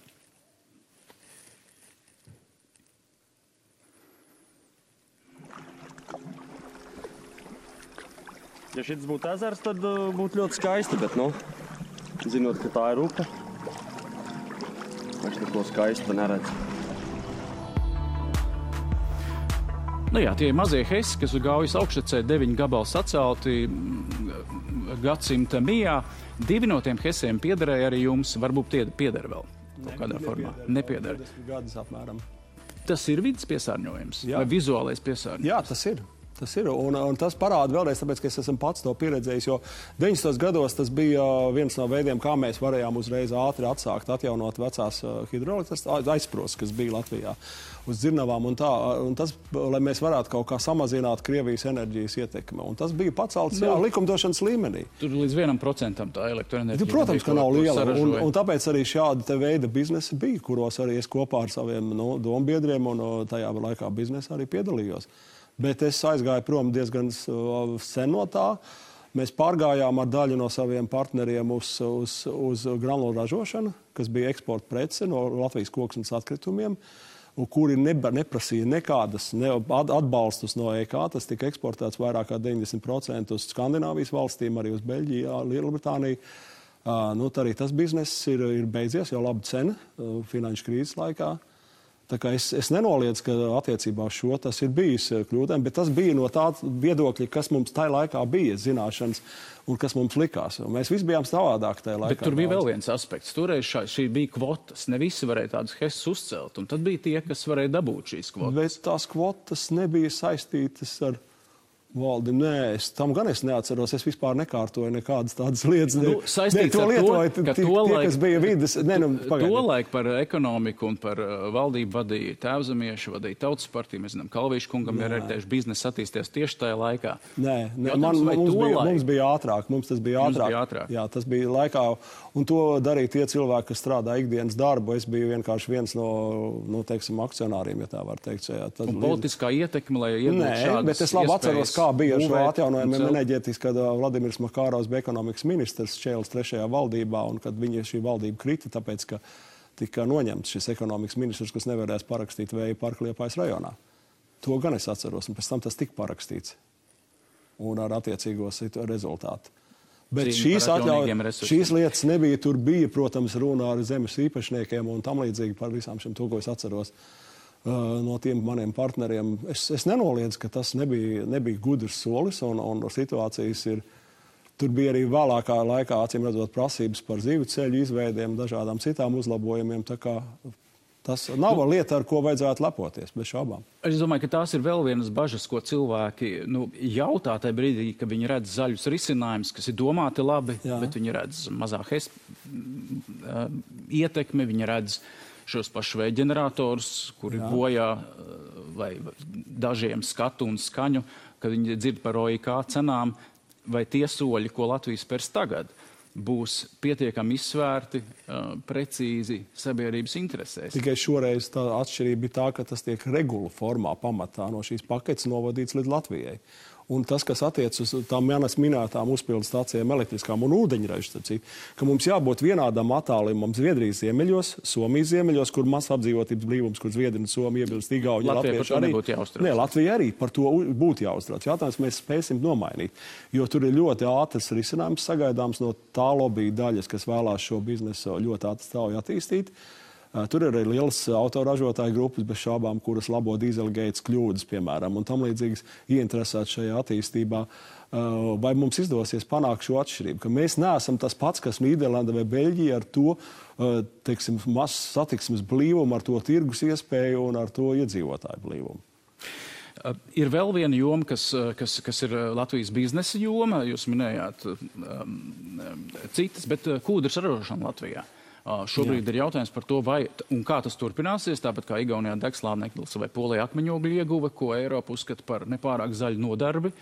Ja šis būtu ezers, tad būtu ļoti skaisti, bet, zinot, ka tā ir upe, es neko skaistu neredzu. Tie ir mazie hesi, kas uz Gaujas augštecē 9 gabali sacelti gadsimta mijā. 2 no tiem hesiem piederēja arī jums, varbūt pieder vēl kaut kādā formā. Nepieder. Gadus apmēram. Tas ir vidas piesārņojums vai vizuālais piesārņojums? Jā, tas ir. Tas ir, un tas parāda vēlreiz, tāpēc, ka es esmu pats to pieredzējis, jo 90. gados tas bija viens no veidiem, kā mēs varējām uzreiz ātri atsākt, atjaunot vecās hidroelektrostacijas aizsprosts, kas bija Latvijā uz dzirnavām un tā, un tas, lai mēs varētu kaut kā samazināt Krievijas enerģijas ietekmi. Un tas bija pacelts, likumdošanas līmenī. Tur līdz 1% tā elektroenerģija. Protams, ka nav liela, un tāpēc arī šāda te veida biznesa bija, kuros arī es kopā ar saviem dombiedriem un tajā laikā biznesa arī piedalījos. Bet es aizgāju prom diezgan sen no tā. Mēs pārgājām ar daļu no saviem partneriem uz granulu ražošanu, kas bija eksporta prece no Latvijas koksnes atkritumiem, un kuri neprasīja nekādas atbalstus no EK. Tas tika eksportēts vairāk kā 90% uz Skandināvijas valstīm, arī uz Beļģiju, Lielbritāniju. Arī tas bizness ir beidzies, jau laba cena finanšu krīzes laikā. Tā kā es nenoliedzu, ka attiecībā uz šo tas ir bijis kļūdām, bet tas bija no tā viedokļa, kas mums tajā laikā bija zināšanas un kas mums likās. Un mēs visi bijām savādāk tajā laikā. Bet tur bija vēl viens aspekts. Toreiz šī bija kvotas. Ne visi varēja tādas hesas uzcelt, un tad bija tie, kas varēja dabūt šīs kvotas. Bet tās kvotas nebija saistītas ar valdi. Nē, tam gan es neatceros. Es vispār nekārtoju nekādas tādas lietas. Saistīts ar to, ka kas bija vides. Tolaik par ekonomiku un par valdību vadīja Tēvzemieši, vadīja Tautas partija. Mēs zinām, Kalvīša kungam ir arī biznesa attīsties tieši tajā laikā. Nē, mums bija ātrāk. Mums tas bija ātrāk. Jā, tas bija laikā. Un to darīja tie cilvēki, kas strādā ikdienas darbu. Es biju vienkārši viens no teiksim, akcionāriem, ja tā var teikt. Un politiskā ietekme, lai iegūtu šādas bet es labi atceros, kā bija ar šo atjaunojumu enerģētikas, kad Vladimirs Makārovs bija ekonomikas ministrs Čēles 3. valdībā, un kad šī valdība krita, tāpēc, ka tika noņemts šis ekonomikas ministrs, kas nevarēs parakstīt vēja parku Liepājas rajonā. To gan es atceros, un pēc tam tas tika parakstīts. Un ar attiecīgo rezultātu. Bet šīs lietas nebija. Tur bija, protams, runa ar zemes īpašniekiem un tam līdzīgi par visām šiem to, ko es atceros no tiem maniem partneriem. Es nenoliedzu, ka tas nebija gudrs solis un situācijas ir. Tur bija arī vēlākā laikā, acīm redzot, prasības par zīvu ceļu izveidiem, dažādām citām uzlabojumiem. Tā kā tas nav lieta, ar ko vajadzētu lepoties, bez šaubām. Es domāju, ka tās ir vēl vienas bažas, ko cilvēki jautā tajā brīdī, ka viņi redz zaļus risinājumus, kas ir domāti labi, bet viņi redz mazāk ietekmi, viņi redz šos pašus vēja ģeneratorus, kuri bojā vai dažiem skatu un skaņu, kad viņi dzird par OIK cenām, vai tie soļi, ko Latvijas spērs tagad, būs pietiekami izsvērti, precīzi sabiedrības interesēs. Tikai šoreiz tā atšķirība bija tā, ka tas tiek regula formā pamatā no šīs paketes novadīts līdz Latvijai. Un tas, kas attiec uz tām manas minētām uzpildu stācijām elektriskām un ūdeņražu, ka mums jābūt vienādam attālumam Zviedrijas ziemeļos, Somijas ziemeļos, kur maz apdzīvotības blīvums, kur Zviedri un Somija iebilst, Igauņi, Latvieši arī. Nē, Latvija arī par to būtu jāuztrauc. Jautājums mēs spēsim nomainīt, jo tur ir ļoti ātrs risinājums sagaidāms no tā lobby daļas, kas vēlās šo biznesu ļoti ātri strauji attīstīt. Tur ir arī lielas autoražotāju grupas, bez šaubām, kuras labo dīzelgeitas kļūdas, piemēram, un tam līdzīgas ieinteresētas šajā attīstībā. Vai mums izdosies panākt šo atšķirību? Ka mēs neesam tas pats, kas Nīderlanda vai Beļģija ar to, teiksim, mazs satiksmes blīvumu, ar to tirgus iespēju un ar to iedzīvotāju blīvumu. Ir vēl viena joma, kas ir Latvijas biznesa joma. Jūs minējāt citas, bet kūdras ražošana Latvijā. Šobrīd ir jautājums par to, vai un kā tas turpināsies, tāpat kā Igaunijā degslāneklis vai Polijā akmeņogļu ieguve, ko Eiropa uzskata par nepārāk zaļu nodarbi.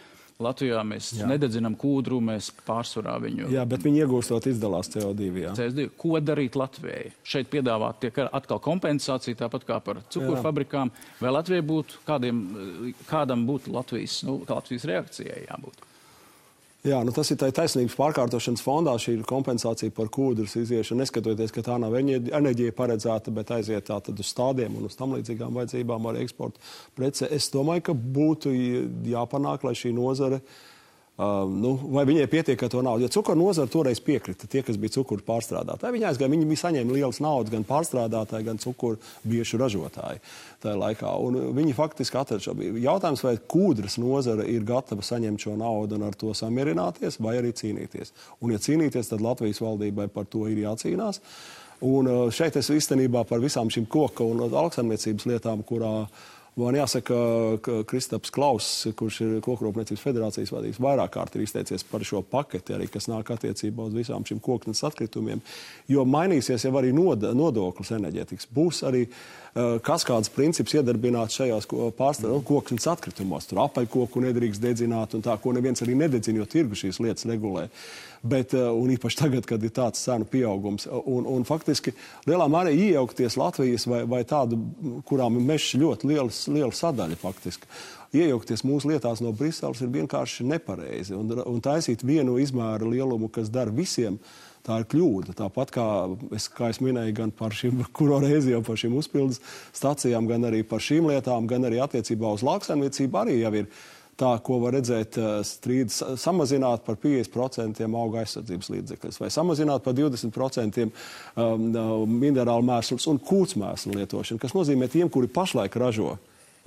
Latvijā mēs nededzinām kūdru, mēs pārsvarā viņu... Jā, bet viņi iegūstot izdalās CO2, jā. CO2. Ko darīt Latvijai? Šeit piedāvāt tiek atkal kompensācija, tāpat kā par cukurfabrikām. Vai Latvijai būtu, kādam būtu Latvijas reakcijai jābūt? Jā, tas ir taisnības pārkārtošanas fondā, šī ir kompensācija par kūdras iziešanu, neskatoties, ka tā nav enerģija paredzēta, bet aiziet tātad uz stādiem un uz tam līdzīgām vajadzībām arī eksporta prece. Es domāju, ka būtu jāpanāk, lai šī nozare, vai viņai pietiek ar to naudu. Jo cukuru nozara toreiz piekrita, tie, kas bija cukuru pārstrādātāji. Viņi bija saņēma lielas naudas gan pārstrādātāji, gan cukuru biešu ražotāji tajā laikā. Un viņi faktiski atrada šo. Jautājums, vai kūdras nozara ir gatava saņemt šo naudu un ar to samierināties, vai arī cīnīties. Un, ja cīnīties, tad Latvijas valdībai par to ir jācīnās. Un šeit es īstenībā par visām šīm koka un lauksaimniecības lietām, kurā Man jāsaka, ka Kristaps Klauss, kurš ir Kokrūpniecības federācijas vadījis, vairāk kārt ir izteicies par šo paketi, arī, kas nāk attiecībā uz visām šīm koknes atkritumiem, jo mainīsies jau arī nodoklis enerģētikas. Būs arī kaskādas princips iedarbināts šajās koknes atkritumos. Tur apaļkoku nedrīkst dedzināt un tā, ko neviens arī nededzina, jo tirgu šīs lietas regulē. Bet, un īpaši tagad, kad ir tāds cenu pieaugums. Un faktiski lielā mērā iejaukties Latvijas vai tādu, kurām ir mežs ļoti liela sadaļa faktiski. Iejaukties mūsu lietās no Briseles ir vienkārši nepareizi. Un taisīt vienu izmēru lielumu, kas dara visiem, tā ir kļūda. Tāpat kā es minēju gan par šīm, kuro reizi jau par šīm uzpildes stacijām, gan arī par šīm lietām, gan arī attiecībā uz lauksaimniecību arī jau ir tā, ko var redzēt strīdus samazināt par 50% auga aizsardzības līdzekļus, vai samazināt par 20% minerālu mēslus un kūtsmēslu lietošanu, kas nozīmē tiem, kuri pašlaik ražo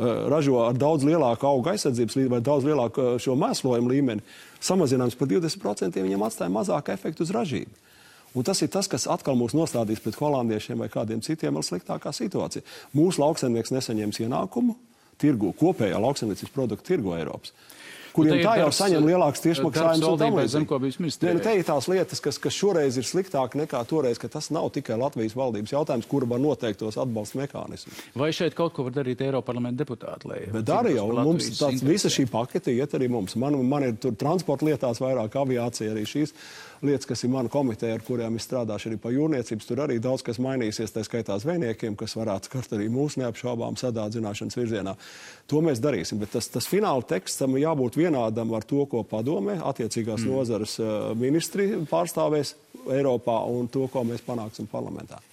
ar daudz lielāku auga aizsardzības līmeni vai daudz lielāku šo mēslojumu līmeni, samazinājums par 20% viņam atstāja mazāku efektu uz ražību. Un tas ir tas, kas atkal mūs nostādīs pret holandiešiem vai kādiem citiem vēl sliktākā situācija. Mūsu lauksaimnieks nesaņems ienākumu tirgu, kopējā lauksaimniecības produktu tirgu Eiropas, kuriem tā jau saņem lielāks tiešmaksājums un tam līdzīgi. Te ir tās lietas, kas šoreiz ir sliktāk nekā toreiz, ka tas nav tikai Latvijas valdības jautājums, kura var noteikt tos atbalsta mehānismus. Vai šeit kaut ko var darīt Eiroparlamenta deputāti? Bet arī jau mums visa šī pakete iet arī mums. Man ir tur transporta lietās vairāk, aviācija arī šīs lietas, kas ir mana komiteja, ar kurām es strādāšu arī par jūrniecības. Tur arī daudz kas mainīsies, tā skaitā zvejniekiem, kas varētu skart arī mūsu neapšaubām sadārdzināšanas virzienā. To mēs darīsim, bet tas fināla tekstam jābūt vienādam ar to, ko padomē attiecīgās nozares ministri pārstāvēs Eiropā un to, ko mēs panāksim parlamentā.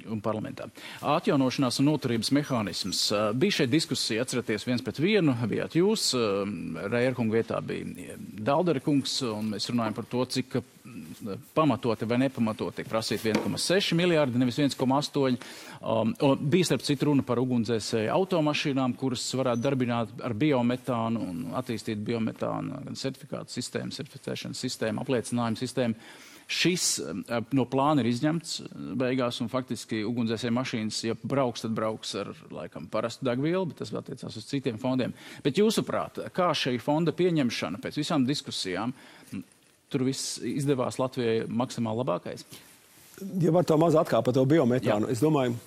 Atjaunošanās un noturības mehānisms. Bija šeit diskusija, atceraties, 1-1, bijāt jūs, Reierkunga vietā bija Daldera kungs, un mēs runājam par to, cik pamatoti vai nepamatoti tiek prasīt 1,6 miljārdi, nevis 1,8. Bija starp citu runa par ugunsdzēsēju automašīnām, kuras varētu darbināt ar biometānu un attīstīt biometānu gan certifikātu sistēmu, certificēšanas sistēmu, apliecinājumu sistēmu. Šis no plāna ir izņemts beigās, un faktiski ugunsdzēsēju mašīnas, ja brauks, tad brauks ar, laikam, parastu degvielu, bet tas vēl attiecās uz citiem fondiem. Bet jūsuprāt, kā šī fonda pieņemšana pēc visām diskusijām, tur viss izdevās Latvijai maksimāli labākais? Ja var to maz atkāpt par to biometānu, es domāju,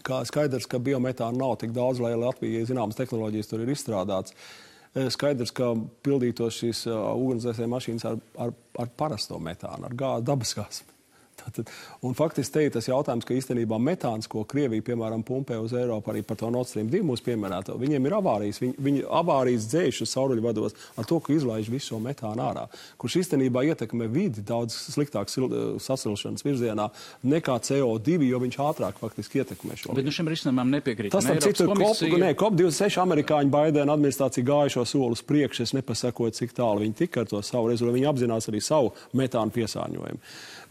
kā skaidrs, ka biometāna nav tik daudz, lai Latvijai zināmas tehnoloģijas tur ir izstrādāts. Skaidrs, ka pildītos šīs ugunsdzēsēju mašīnas ar parasto metānu, ar dabasgāzi. Un faktiski te ir tas jautājums, ka īstenībā metāns, ko Krievija, piemēram, pumpē uz Eiropu, arī par to Nord Stream 2 mūsu pieminēto, viņiem ir avārijas. Viņi avārijas dzēš uz sauruļvados ar to, ka izlaiž visu šo metānu ārā, kurš īstenībā ietekmē vidi daudz sliktāk sasilšanas virzienā nekā CO2, jo viņš ātrāk faktiski ietekmē šo. Bet šim risinājumam nepiekrīt. Tas tam citu COP26 amerikāņu Baidena administrācija gāja šo soli uz priekšu, es nepasakoju, cik tālu viņi tika ar to savu rezultātu. Viņi apzinās arī savu metānu piesārņojumu.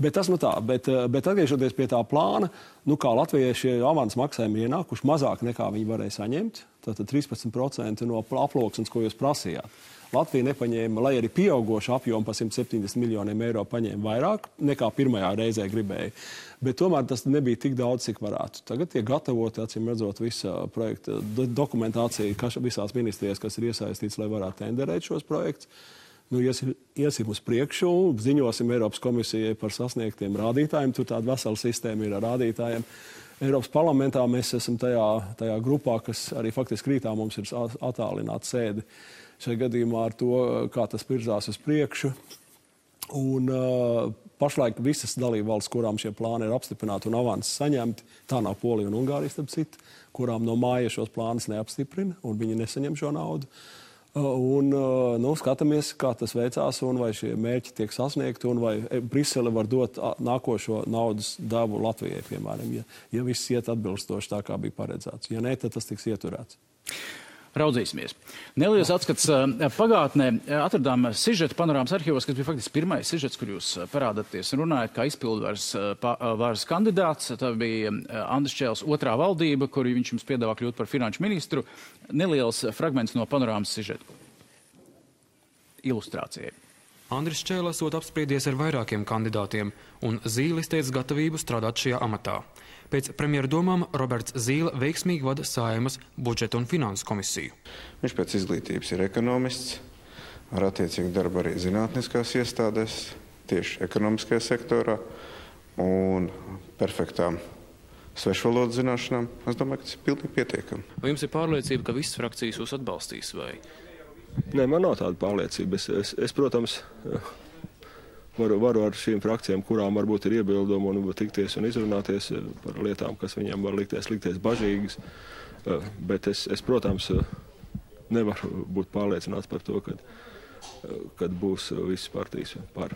Bet tas tā. Bet atgriežoties pie tā plāna, kā Latvijai šie avans maksājumi ienākuši mazāk nekā viņi varēja saņemt, tātad 13% no aploksnes, ko jūs prasījāt. Latvija nepaņēma, lai arī pieaugošu apjomu par 170 miljoniem eiro paņēma vairāk nekā pirmajā reizē gribēja. Bet tomēr tas nebija tik daudz, cik varētu. Tagad tiek gatavoti, acīm redzot, visa projekta dokumentācija visās ministrijās, kas ir iesaistīts, lai varētu tenderēt šos projektus. Iesim uz priekšu, ziņosim Eiropas komisijai par sasniegtiem rādītājiem. Tur tāda vesela sistēma ir ar rādītājiem. Eiropas parlamentā mēs esam tajā grupā, kas arī faktiski rītā mums ir attālināta sēde šajā gadījumā ar to, kā tas virzās uz priekšu. Un pašlaik visas dalībvalstis, kurām šie plāni ir apstiprināti un avansi saņemti, tā nav Polija un Ungārija, starp citu, kurām no māja šos plānus neapstiprina un viņi nesaņem šo naudu. Un skatāmies, kā tas veicās un vai šie mērķi tiek sasniegti un vai Brisele var dot nākošo naudas devu Latvijai, piemēram, ja viss iet atbilstoši tā, kā bija paredzēts. Ja nē, tad tas tiks ieturēts. Raudzīsimies. Neliels atskats pagātnē. Atradām sižetu panorāmas arhīvos, kas bija faktiski pirmais sižets, kur jūs parādaties un runājat kā izpildvaras kandidāts. Tā bija Andris Čēls otrā valdība, kur viņš jums piedāvā kļūt par finanšu ministru. Neliels fragments no panorāmas sižetu ilustrācijai. Andris Čēls esot apspriedies ar vairākiem kandidātiem un zīlis teica gatavību strādāt šajā amatā. Pēc premjera domām Roberts Zīle veiksmīgi vada Saeimas budžeta un finansu komisiju. Viņš pēc izglītības ir ekonomists, ar attiecīgu darbu arī zinātniskās iestādēs, tieši ekonomiskajā sektorā un perfektām svešvalodu zināšanām. Es domāju, ka tas ir pilnīgi pietiekami. Vai jums ir pārliecība, ka visas frakcijas jūs atbalstīs? Vai? Nē, man nav tāda pārliecība. Es protams, varu ar šīm frakcijām, kurām varbūt ir iebildumi un tikties un izrunāties par lietām, kas viņiem var likties bažīgas. Bet es, protams, nevaru būt pārliecināts par to, kad būs visas partijas par.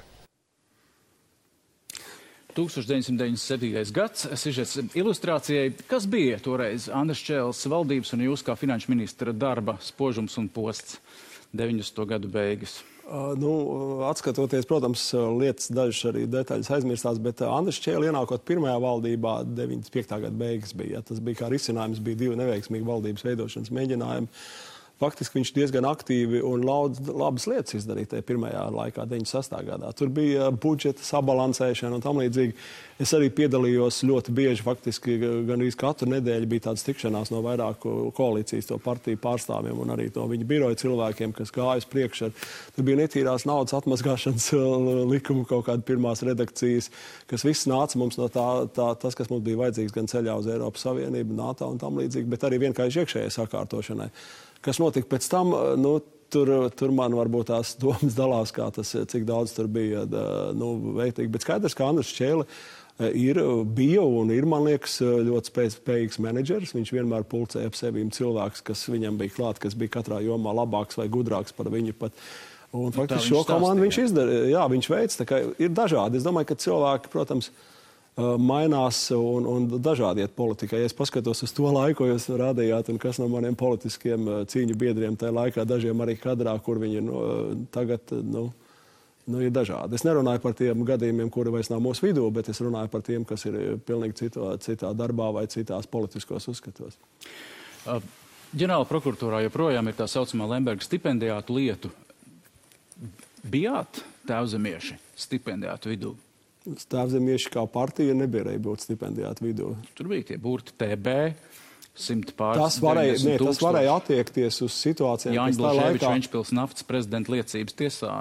1997. gads, sižets ilustrācijai. Kas bija toreiz Andris Čēles valdības un jūs kā finanšu ministra darba spožums un posts 90. gadu beigas? Atskatoties, protams, lietas dažas arī detaļas aizmirstās, bet Andris Čēle ienākot pirmajā valdībā 95. gada beigas bija. Tas bija kā risinājums, bija 2 neveiksmīgi valdības veidošanas mēģinājumi. Faktiski viņš diezgan aktīvi un labas lietas izdarīja tajā pirmajā laikā, 96. gadā. Tur bija budžeta sabalansēšana un tam līdzīgi. Es arī piedalījos ļoti bieži, faktiski gandrīz katru nedēļu bija tādas tikšanās no vairāku koalīcijas to partiju pārstāvjiem un arī no viņa biroja cilvēkiem, kas gāja uz priekšu. Tur bija netīrās naudas atmazgāšanas likuma kaut kāda pirmās redakcijas, kas viss nāca mums no tas, kas mums bija vajadzīgs gan ceļā uz Eiropas Savienību, NATO un tam līdzīgi, bet arī vienkārši iekšējai sakārtošanai. Kas notika pēc tam, tur man varbūt tās domas dalās, cik daudz tur bija vērtīgi. Bet skaidrs, ka Andris Čēle bija un ir, man liekas, ļoti spējīgs menedžeris. Viņš vienmēr pulcēja ap sevīm cilvēks, kas viņam bija klāt, kas bija katrā jomā labāks vai gudrāks par viņu pat. Un faktiski šo komandu viņš izdarīja. Jā, viņš veids, tā kā ir dažādi. Es domāju, ka cilvēki, protams, mainās un dažādi iet politikā. Ja es paskatos uz to laiku, ko jūs rādījāt, un kas no maniem politiskiem cīņu biedriem tajā laikā, dažiem arī kadrā, kur viņi tagad ir dažādi. Es nerunāju par tiem gadījumiem, kuri vairs nav mūsu vidū, bet es runāju par tiem, kas ir pilnīgi citā darbā vai citās politiskos uzskatos. Ģenerāla prokuratūrā joprojām ir tā saucamā Lemberga stipendijātu lietu. Bijāt tēvzemieši stipendijātu vidū? Tēvzemieši kā partija nebija būt stipendijātu vidū. Tur bija tie burti TB, 100 pāris. Tas varēja attiekties uz situācijām, Jāņa Blaževiča Ventspils naftas prezidenta liecības tiesā.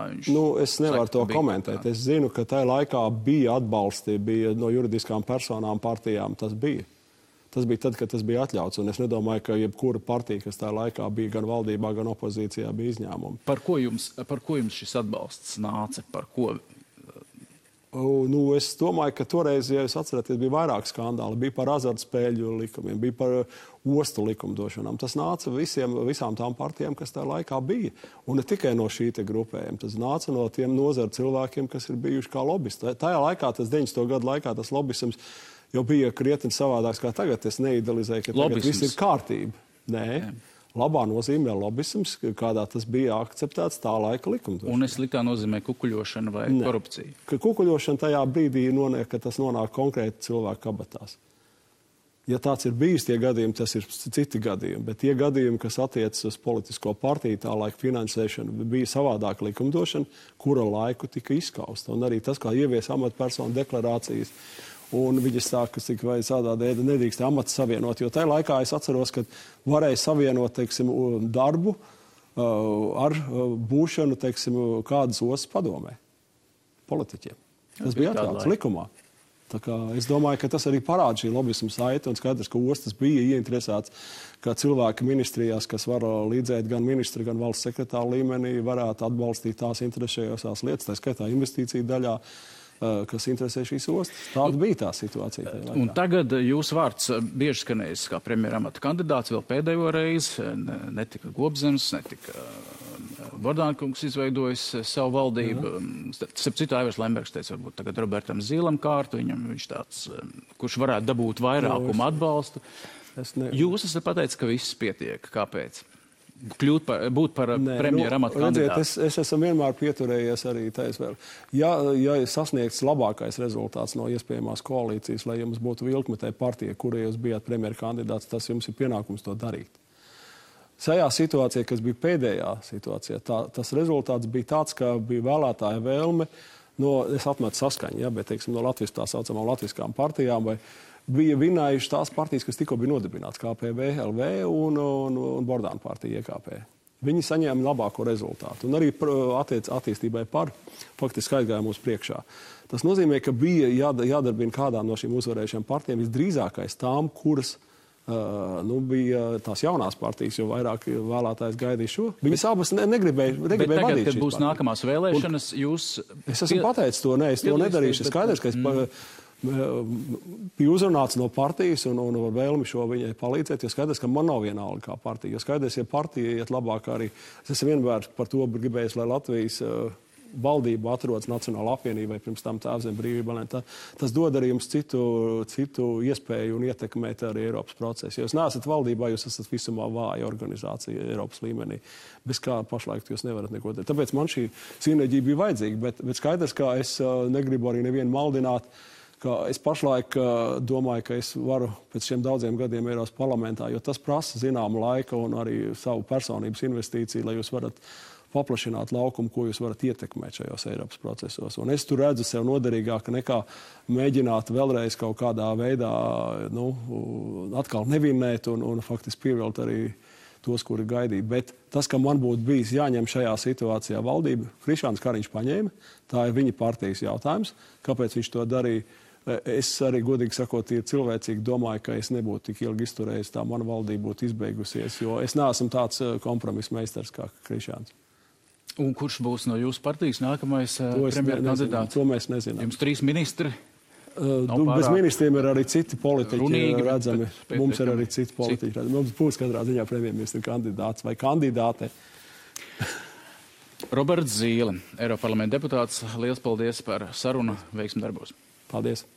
Es nevaru to komentēt. Es zinu, ka tajā laikā bija atbalsti, bija no juridiskām personām partijām. Tas bija. Tas bija tad, kad tas bija atļauts. Un es nedomāju, ka jebkura partija, kas tajā laikā bija gan valdībā, gan opozīcijā, bija izņēmumi. Par ko jums šis atbalsts nāca? Par ko? Es domāju, ka toreiz, ja jūs atceraties, bija vairāk skandāli. Bija par azartspēļu likumiem, bija par ostu likumdošanām. Tas nāca visām tām partijām, kas tajā laikā bija. Un ne tikai no šī te grupējuma. Tas nāca no tiem nozaru cilvēkiem, kas ir bijuši kā lobbyisti. Tajā laikā, tas 90. gadu laikā, tas lobbisms jau bija krietni savādāks kā tagad. Es neidealizēju, ka tagad viss ir kārtība. Nē. Jā. Labā nozīmē lobbisms, kādā tas bija akceptēts tā laika likumdošana. Un sliktā nozīmē kukuļošana vai korupcija? Ka kukuļošana tajā brīdī noniek, ka tas nonāk konkrēti cilvēku kabatās. Ja tāds ir bijis tie gadījumi, tas ir citi gadījumi, bet tie gadījumi, kas attiecas uz politisko partiju, tā laika finansēšana, bija savādāka likumdošana, kura laiku tika izskausta. Un arī tas, kā ievies amatpersonu deklarācijas, un viņas sāka, cik vai tādā dēļ nedrīkst amats savienot, jo tajā laikā es atceros, ka varēja savienot, teiksim, darbu ar būšanu, teiksim, kādas ostas padomē politiķiem. Tas bija atļauts likumā. Tā kā es domāju, ka tas arī parāda šī lobbismu saite, un skaidrs, ka ostas bija ieinteresēts, ka cilvēki ministrijās, kas var līdzēt gan ministra, gan valsts sekretāra līmenī, varētu atbalstīt tās interesējošās lietas, tā skaitā investīciju daļā, kas interesē šīs ostas. Tāda bija tā situācija. Un tagad jūsu vārds bieži skanējis kā premjera amata kandidāts vēl pēdējo reizi. Netika Gobzems, netika Bordānkungs izveidojis savu valdību. Starp citu, Aivars Lembergs teica, varbūt tagad Robertam Zīlam kārtu. Viņš tāds, kurš varētu dabūt vairākumu atbalstu. Jūs esat pateicis, ka viss pietiek. Kāpēc? Būt par premjera amata kandidātu. Es esmu vienmēr pieturējies arī taisvēl. Ja sasniegts labākais rezultāts no iespējamās koalīcijas, lai jums būtu vilkmetē partija, kura jūs bijāt premjera kandidāts, tas jums ir pienākums to darīt. Šajā situācijā, kas bija pēdējā situācijā, tas rezultāts bija tāds, ka bija vēlētāja vēlme, es atmetu saskaņu, bet, teiksim, no tā saucamām latviskām partijām vai bija vinējuši tās partijas, kas tikko bija nodibināts, KPV, LV un Bordāna partija IKP. Viņi saņēma labāko rezultātu. Un arī attīstībai par faktiski aizgājumu uz priekšā. Tas nozīmē, ka bija jādarbina kādām no šīm uzvarējušām partijām visdrīzākais tām, kuras bija tās jaunās partijas, jo vairāk vēlētājs gaidīja šo. Viņas abas negribēja Bet tagad, vadīt kad būs nākamās vēlēšanas, jūs... Es esmu pateicis to, es to nedarīšu. Skaidrs, ka es bija uzrunāts no partijas un vēlmi šo viņai palīdzēt, jo skaidrs, ka man nav vienalga kā partija. Jo skaidrs, ja partija iet labāk arī... Es esmu vienmēr par to gribējis, lai Latvijas valdība atrodas Nacionāla apvienībai, pirms tam Tēvzem brīvība. Tas dod arī jums citu iespēju un ietekmēt arī Eiropas procesu. Ja jūs neesat valdībā, jūs esat visumā vāja organizācija Eiropas līmenī. Bez kā pašlaik jūs nevarat neko darīt. Tāpēc man šī sinerģija bija vajadzīga, bet skaidrs, ka es negribu arī nevienu maldināt, ka es pašlaik domāju, ka es varu pēc šiem daudziem gadiem Eiropas parlamentā, jo tas prasa zināmu laiku un arī savu personības investīciju, lai jūs varat paplašināt laukumu, ko jūs varat ietekmēt šajos Eiropas procesos. Un es tur redzu sev noderīgāk nekā mēģināt vēlreiz kaut kādā veidā atkal nevinēt un faktiski pievilkt arī tos, kuri gaidīja. Bet tas, ka man būtu bijis jāņem šajā situācijā valdība, Krišjāns Kariņš paņēma, tā ir viņa partijas jautājums. Kāpēc viņš to darīja? Es arī, godīgi sakot, cilvēcīgi domāju, ka es nebūtu tik ilgi izturējis, tā mana valdība būtu izbeigusies, jo es neesmu tāds kompromiss meistars kā Krišjāns. Un kurš būs no jūsu partijas nākamais premjerkandidāts? To mēs nezinām. Jums 3 ministri? Bez ministriem ir arī citi politiķi redzami. Mums ir arī citi politiķi redzami. Mums būs katrā ziņā premjerministra kandidāts vai kandidāte. Roberts Zīle, Eiroparlamenta deputāts. Liels paldies par sarunu. Veiksmi darbos. Paldies.